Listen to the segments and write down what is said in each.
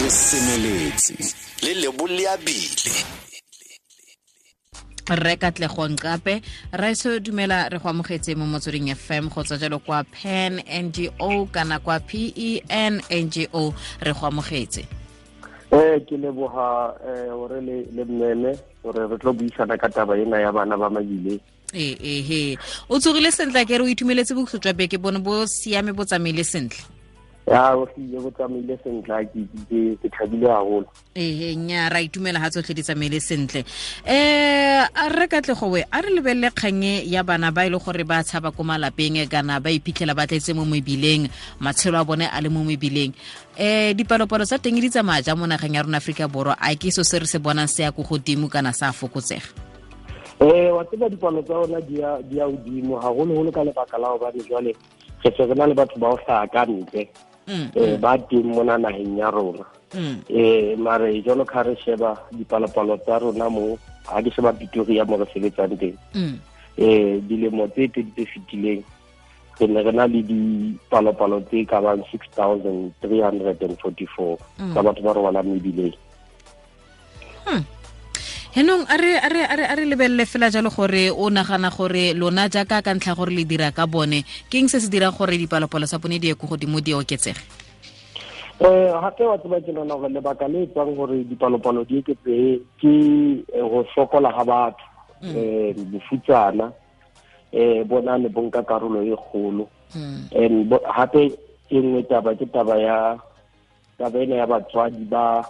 Re semeletse le leboleabile. Rre Katlego Nqape, raeso dumela, re go amogetse mo Motsweding FM go tswa jalo kwa PEN NGO kana kwa PEN NGO, re go amogetse. Ke leboga gore le mmeme gore re tlo buisana ka taba ena ya bana ba mebileng. Ee, o tsogile sentle ke re o itumeletse bokhutlo jwa beke bone bo siame, bo tsamaile sentle? Ya, o hlile bo tsamaile sentle, ke thabile haholo. Ee, nya ra itumela ha tsotlhe di tsamaile sentle. A re Katlego we, a re lebelele kgang ya bana ba e le gore ba tshaba ko malapeng kana ba iphitlhela ba tletse mo mebileng, matshelo a bone a le mo mebileng. Dipalopalo tsa teng di tsamaya jang mo nageng ya rona Aforika Borwa? A ke so se re se bonang se ya ko godimo kana sa fokotsega? Wa tseba, dipalo tsa rona di ya hodimo haholoholo ka lebaka la hobane jwale re se re na le batho ba ho hlaha ka ntle ba teng mona naheng ya rona. Mare jwalo ka re sheba dipalopalo tsa rona mo, ha ke sheba Pretoria mo re sebetsang teng, dilemo tse pedi tse fetileng re ne re na le dipalopalo tse ka bang 6344 tsa batho ba robalang mebileng. Henong a re lebelele fela jalo gore o nagana gore lona jaaka ka ntlha gore le dira ka bone, ke eng se se dirang gore dipalopalo tsa bone di ye ko godimo, di oketsege? Gape wa tseba, ke nahana gore lebaka le etsang gore dipalopalo di eketsehe ke go sokola ga batho, bofutsana bona ne bo nka karolo e kgolo. And hape e nngwe taba ke taba ya taba ena ya batswadi ba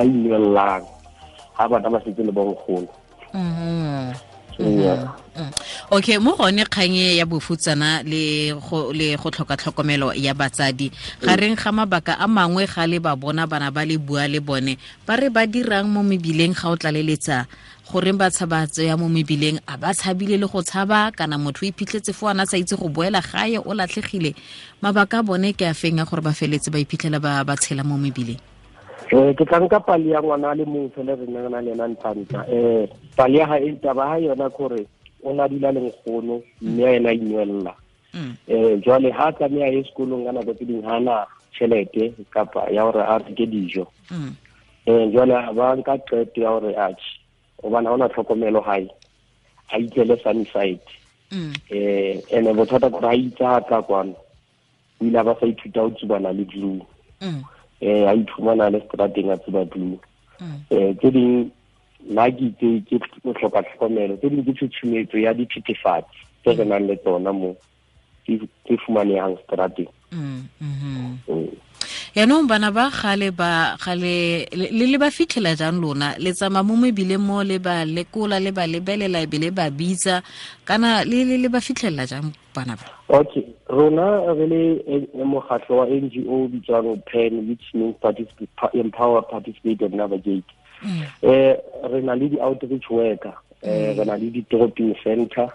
inwellang ha bana ba setse le bonkgono. Yeah. Okay, mo gone kgang e ya bofutsana le go tlhoka tlhokomelo ya batsadi gareng ga mabaka a mangwe, ga le ba bona bana ba le bua le bone, ba re ba dirang mo mebileng? Ga o tlaleletsa, goreng ba tshaba ya mo mebileng? A ba tshabile le go tshaba kana motho o iphitlhetse fo ana sa itse go boela gae, o latlhegile? Mabaka a bone ke a feng a gore ba feletse ba iphitlhela ba tshela mo mebileng? Ke tla nka pale ya ngwana a le mong fela re neng re na le ena Ntlantla. Pale ya hae, taba ha yona ke hore o na dula le nkgono mme a ena inwella. Jwale ha tlameha ye sekolong, ka nako tse ding ha na tjhelete kapa ya hore a reke dijo. Jwale ba nka qeto ya hore atjhe, hobane ha hona tlhokomelo hae, a itlele Sunnyside. Ene bothata ke hore ha itse ha tla kwano, o ile a ba sa ithuta ho tsubana le glue. A iphumana le strateng a tsuba glue. Tse ding nna ke itse ke go hloka tlhokomelo, tse ding ke tshutshumetso ya dithethefatsi tse re nang le tsona mo tse fumanehang strateng. Yaanong bana ba gale ba gale le ba fitlhela jang lona? Le tsamaya mo mebileng mo, le ba lekola, le ba lebelela, e be le ba bitsa, kana le ba fitlhelela jang bana ba? Okay, rona re le mokgatlo wa NGO bitswang PEN, which means Empower, Participate and Navigate. Re na le di-outreach worker, re na le di-drop-in center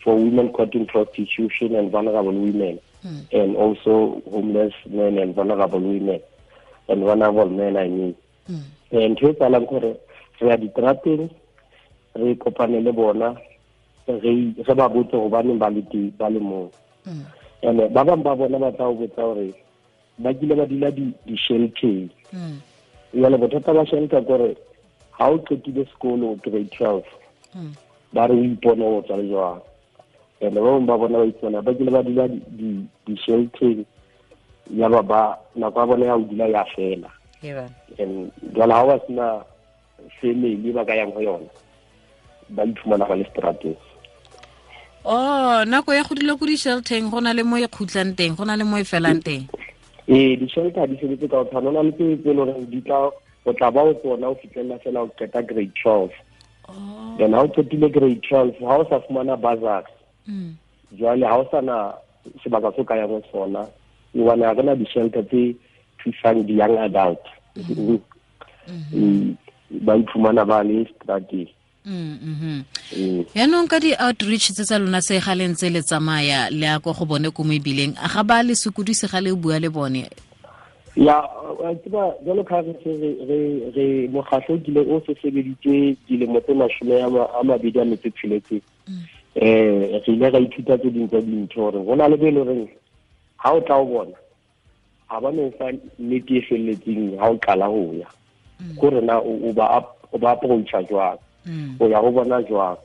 for women caught in prostitution and vulnerable women, and also homeless men and vulnerable women and vulnerable men, I mean. Ntho e tsalang gore re ya ditrateng, re kopane le bona, re ba botse hobaneng ba le teng, ba le moo. And ba bang ba bona ba tla o botsa hore ba kile ba dula di-shelteng. Jwale bothata ba shelter ke hore ha o qetile sekolo grade 12, ba re o ipone o tswa le jwang. And ba bang ba bona ba ipona ba kile ba dula di-shelteng, ya ba nako ya bona ya ho dula ya fela. And jwale ha ba sena family ba ka yang ho yona, ba iphumana ba le strateng. Oh, nako ya go dula ko di-shelteng, go na le mo e khutlang teng, go na le mo e felang teng? Ee, di-shelter di sebetse ka ho tshwana. Ho na le tse e leng hore di tla o tla ba o tsona o fihlella fela o qeta grade 12. Then ha o qetile grade 12, ha o sa fumana bursary, jwale ha o sa na sebaka se o ka yang ho sona, hobane ha re na di-shelter tse thusang di-young adult. Ba iphumana ba le strateng. Yaanong ka di-outreach tse tsa lona se ga le ntse le tsamaya le ya ko go bone ko mebileng, a ga ba le sokodise ga le bua le bone? Ya, wa tseba, jwalo ka re se re mokgatlo o kile o se sebeditse dilemo tse 26, re ile ra ithuta tse ding tsa dintho hore ho na le be e leng horeng ha o tla o bona. ga ba no fa nnete e felletseng ha o qala ho ya. Gore na o ba approacha jwang, o ya go bona jwang.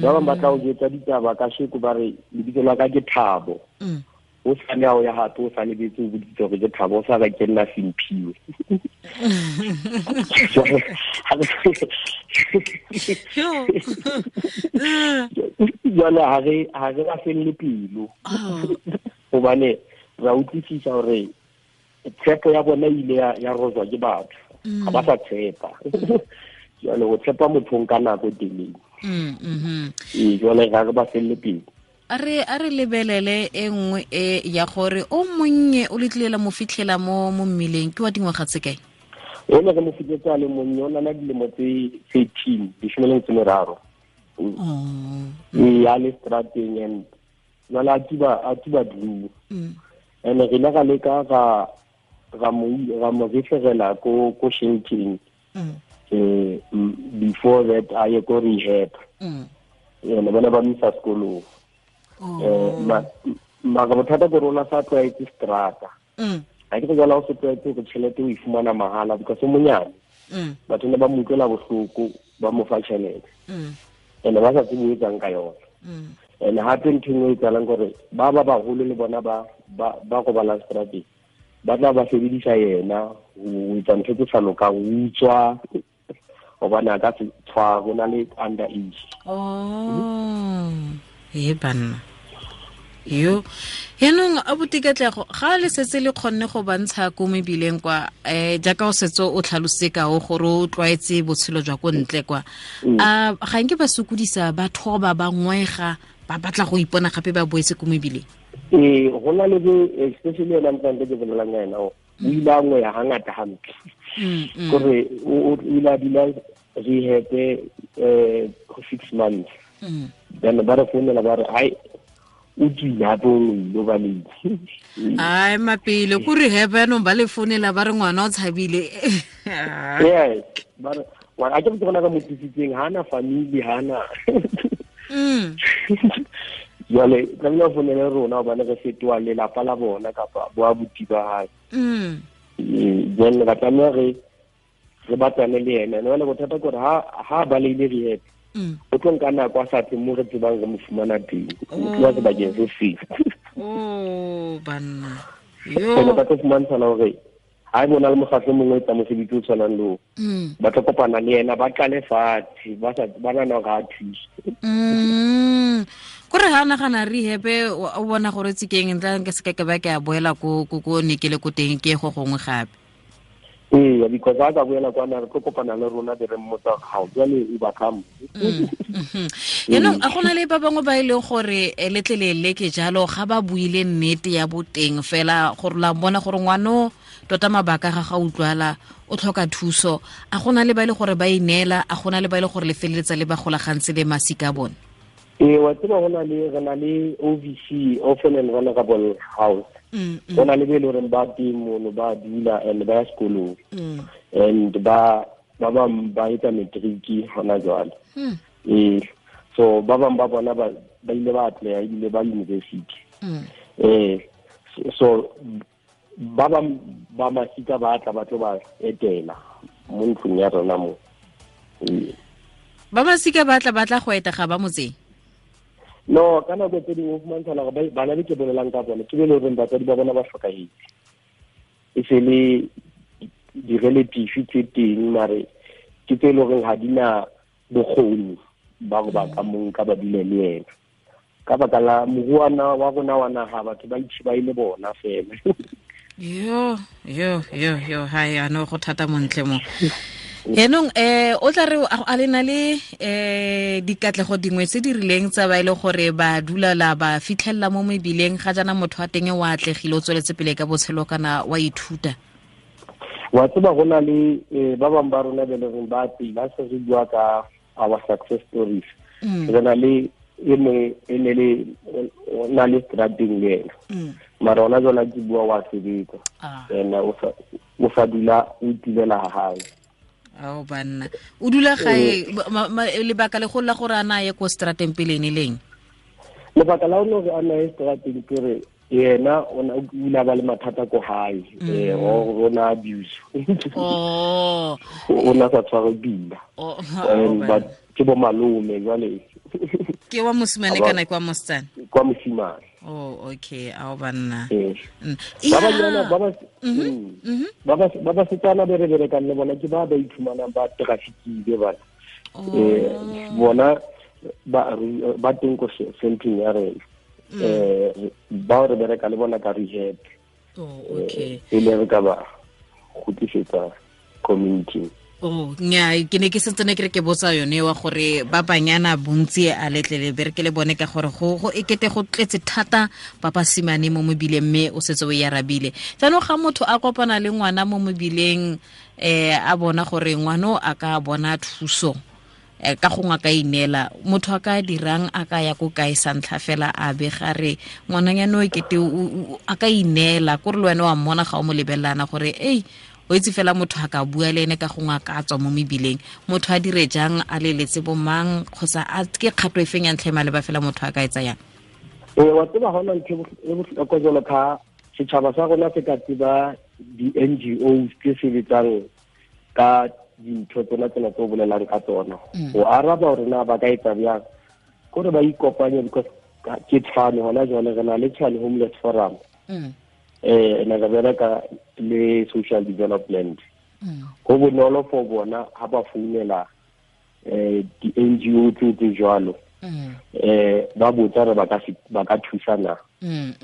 Ba bang ba tla o jwetsa ditaba ka sheko ba re lebitso la ka ke Thabo. O sa ne o ya hape o sa lebetse o boditse gore ke Thabo, o sa ka ke nna Simphiwe. Jwale ha re ba felle pelo, hobane ra utlwisisa hore tshepo ya bona ile ya rozwa ke batho, ga ba sa tshepa. Jwale o tshepa motho ka nako e telele. Jwale ga re ba felle pelo. A re lebelele e nngwe e ya gore o monnye o letlilela mo fitlhela mo mmileng ke wa dingwaga tse kae? O ne re mo fitlhetse a le monnye, o na le dilemo tse 13, 13. E a le strateng and jwale a tsuba blue. And re ile ra leka ra mo referela ko sheltering before that a ye ko rehab. Ene bona ba misa sekolong. Mara bothata ke rona sa tlwaetse strata. Ha ke jwala o se tlwaetse go tšhelete o e fumana mahala because o monyane. Batho ne ba mo utlwela bohloko ba mo fa tšhelete. Ene ba sa tsebe o etsang ka yona. And hape ntho e nngwe e etsahalang kore ba baholo le bona ba robalang strateng ba tla ba sebedisa yena ho etsa ntho tse sa lokang, ho utswa, hobane a ka se tshware, o na le under age. E banna yo yaanong a botikatlego ga le setse le kgonne go bantsha ko mebileng kwa, jaaka o setse o tlhalose kao gore o tlwaetse botshelo jwa ko ntle kwa, a ga nke ba sokodisa ba thoba ba ngwega ba batla go ipona gape ba boetse ko mebileng? Ee, go na le especially yona ntlante ke bolelang ka ena, o ile a ngweya hangata hampe. Kore o ile a dula rehab 6 months. Then ba re founela ba re ai o tswile hape o ile ba late. Ai mapele ko rehab yanong ba le founela ba re ngwana o tshabile. Yes, ba re a ke bona ka mo tlisitseng, ha na family, ha na. Jwale tlamehile ba founele rona hobane re fetoha lelapa la bona kapa bo abuti ba hae. Jwale ba tlameha re batlane le yena. Jwale bothata ke hore ha ba leile rehab, o tlo nka nako a sa tle mo re tsebang re mo fumana teng, o tloha sebakeng se seng. Banna yo ba tlo fumantshana hore ha e bona le mokgatlo o mongwe o etsa mosebetsi o tshwanang le oo, ba tlo kopana le yena, ba qale fatshe, ba nahana hore ha a thuse. Kore ha nagana rehab o bona gore tsikeng ntla nke se ke ba ke a boela ko ne ke le ko teng ke go gongwe gape. Ee, because ha ka boela kwana re tlo kopana le rona be re mmotsa gao jwale o ba kamo. Yaanong a gona le ba bangwe ba e leng gore letlelele ke jalo ga ba buile nnete ya boteng fela gore la bona gore ngwano tota mabaka ga utlwala o tlhoka thuso, a gona le ba e le gore ba ineela, a gona le ba e le gore le feleletsa le ba golagantse le masika a bone? Ee, wa tseba go na le re na le OVC, Orphan and Vulnerable House. Go na le be e le horeng ba teng mono ba dula and ba ya sekolong, and ba bang ba etsa matric hona jwale. Ee, so ba bang ba bona ba ile ba atleha ebile ba university. So ba bang ba masika ba tla ba tlo ba etela mo ntlong ya rona mo. Ba masika ba tla go eta ga ba motseng? No, ka nako tse dingwe o fumantshana gore bana be ke bolelang ka bona ke be le horeng batswadi ba bona ba hlokahetse, e se le di-relative tse teng, mare ke tse e le horeng ha di na bokgoni ba go ba ka monka ba dule le yena ka baka la moruana wa rona wa naha, batho ba itšhiba e le bona fela. Yo hai ano go thata montle mo. Yaanong o tla re a le na le dikatlego dingwe tse di rileng tsa ba e le gore ba dula la ba fitlhelela mo mebileng ga jaana motho wa teng wa atlegile o tsweletse pele ka botshelo kana wa ithuta? Wa tseba go na le ba bangwe ba rona be le reng ba pila se re bua ka our success stories. Re na le e mongwe e ne le o na le strateng le ena, mara ona jwale ke bua wa sebetsa ena o sa dula o itulela ha hae. Ao banna, o dula gae lebaka le go la gore a na ye ko strateng pele ne leng? Lebaka la hore a na ye strateng ke re Yena o ile a ba le mathata ko hae, o na abuse. Oh. O na sa tshware pila. Oh. But ke bo malome jwale. Ke wa mosimane kana ke wa mosetsana? Kwa mosimane. Oh, okay, ao banna. Ba ba setsana be re berekang le bona ke ba ba iphumanang ba trafficile bana. Bona ba teng ko centeng ya rena. Ba re bereka le bona ka rehab. Oh, okay. E le re ka ba kgutlisetsa community. Oh, nya ke ne ke sentse ne ke re ke botsa yone wa gore ba banyana bontsi a letlele bereke le bone ka gore go ekete go tletse thata ba basimane mo mobileng mme o setse o e arabile. Jaanong ga motho a kopana le ngwana mo mobileng, a bona gore ngwana a ka bona thuso, ka gongwe a ka ineela, motho a ka dirang, a ka ya ko kae sa ntlha fela a be ga re ngwananyana o ekete a ka ineela, kore le wena wa mmona ga o mo lebelelana gore ei o itse fela motho a ka bua le ene ka gongwe a ka tswa mo mebileng, motho a dire jang, a leletse bomang kgotsa a ke kgato e feng ya ntlha e maleba fela motho a ka e tsayang? Wa tseba hona ntho e bohlokwa jwalo ka setjhaba sa rona se ka tseba di-NGOs tse sebetsang ka dintho tsona tsena tse o bolelang ka tsona. Ho araba hore na ba ka etsa bjang, kore ba ikopanye, because ke Tshwane hona jwale re na le Tshwane Homeless Forum. Ne re bereka le social development. Ho bonolo for bona ha ba founela di-NGO tse jwalo, ba botsa re ba ka thusana.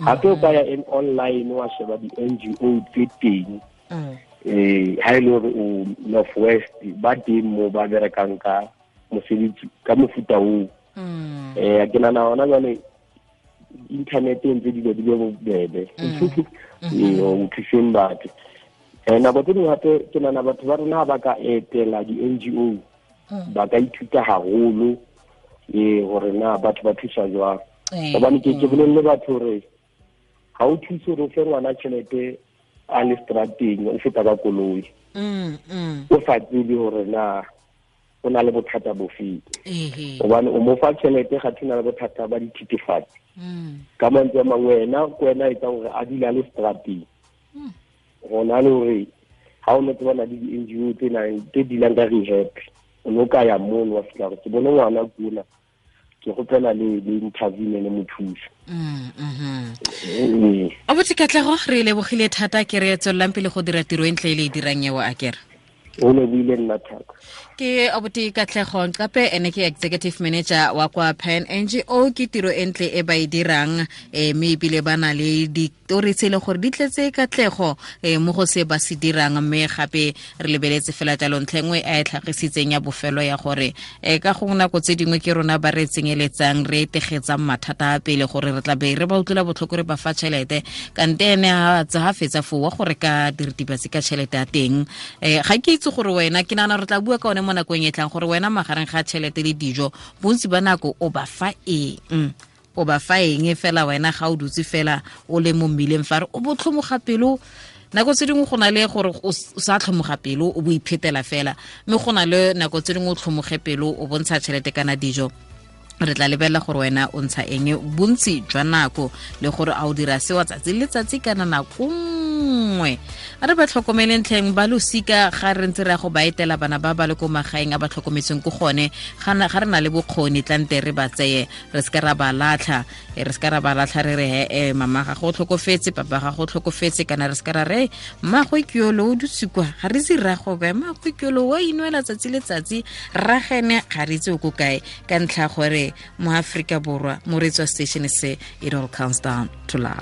Hape o ka ya online wa sheba di-NGO tse teng. Ha e le hore o North West, ba teng mo ba berekang ka mosebetsi ka mofuta oo. Ke nahana hona jwale internet e ntse dilo di be bobebe. O thuseng batho. Nako tse dingwe hape ke nahana batho ba rona ba ka etela di-NGO, ba ka ithuta haholo hore na batho ba thusa jwang. Hobane ke bolelle batho hore ha o thuse hore o fe ngwana tjhelete a le strateng, o feta ka koloi. O sa tsebe hore na o na le bothata bofe. Hobane o mo fa tjhelete ga thina le bothata ba dithethefatsi. Ka mantswe a mangwe wena ke wena a etsang hore a dule a le strateng. Hona le hore ha o no tsebana le di-NGO tse nang tse dealang ka rehab, o no ka ya mono wa fihla hore ke bone ngwana kuna, ke kgopela le intervene le mo thusa. Abuti Katlego, re lebogile thata, ke re tswelelang pele go dira tiro e ntle e le e dirang eo a kere. O lebile nna thata. Ke Abuti Katlego Nqape, ene ke executive manager wa kwa Pan NGO. Ke tiro e ntle e ba e dirang, mme ebile ba na le ditori tse e leng gore di tletse katlego mo go se ba se dirang, mme gape re lebeletse fela jalo ntlha e nngwe a e tlhagisitseng ya bofelo ya gore ka gongwe nako tse dingwe ke rona ba re tsenyeletsang, re tegetsang mathata a pele gore re tla be re ba utlwela botlhoko re ba fa tšhelete, kante ene ha fetsa foo wa gore ka diritibatsi ka tšhelete ya teng. Ga ke itse gore wena, ke nagana re tla bua ka one mo nakong e tlang gore wena magareng ga tšhelete le dijo bontsi ba nako o ba fa eng, o ba fa eng fela wena ga o dutse fela o le mo mmileng fa re o botlhomoga pelo. Nako tse dingwe go na le gore o sa tlhomoga pelo o bo iphetela fela, mme go na le nako tse dingwe o tlhomoge pelo o bontsha tšhelete kana dijo. Re tla lebelela gore wena o ntsha eng bontsi jwa nako le gore a o dira seo tsatsi le letsatsi kana nako nngwe. A re ba tlhokomeleng tlheng ba losika ga re ntse re ya go ba etela bana ba ba le ko magaeng a ba tlhokometseng ko gone, ga re na le bokgoni tlante re ba tseye, re seka ra ba latlha, re seka ra ba latlha re re mama ga go tlhokofetse, papa ga go tlhokofetse, kana re seka ra re mmagwe ke yolo o dutse kwa, ga re itse rrago kae, mmagwe ke yolo wa inwela tsatsi le tsatsi, rragene ga re itse o ko kae, ka ntlha gore mo Afrika Borwa mo re tswa station se, it all comes down to love.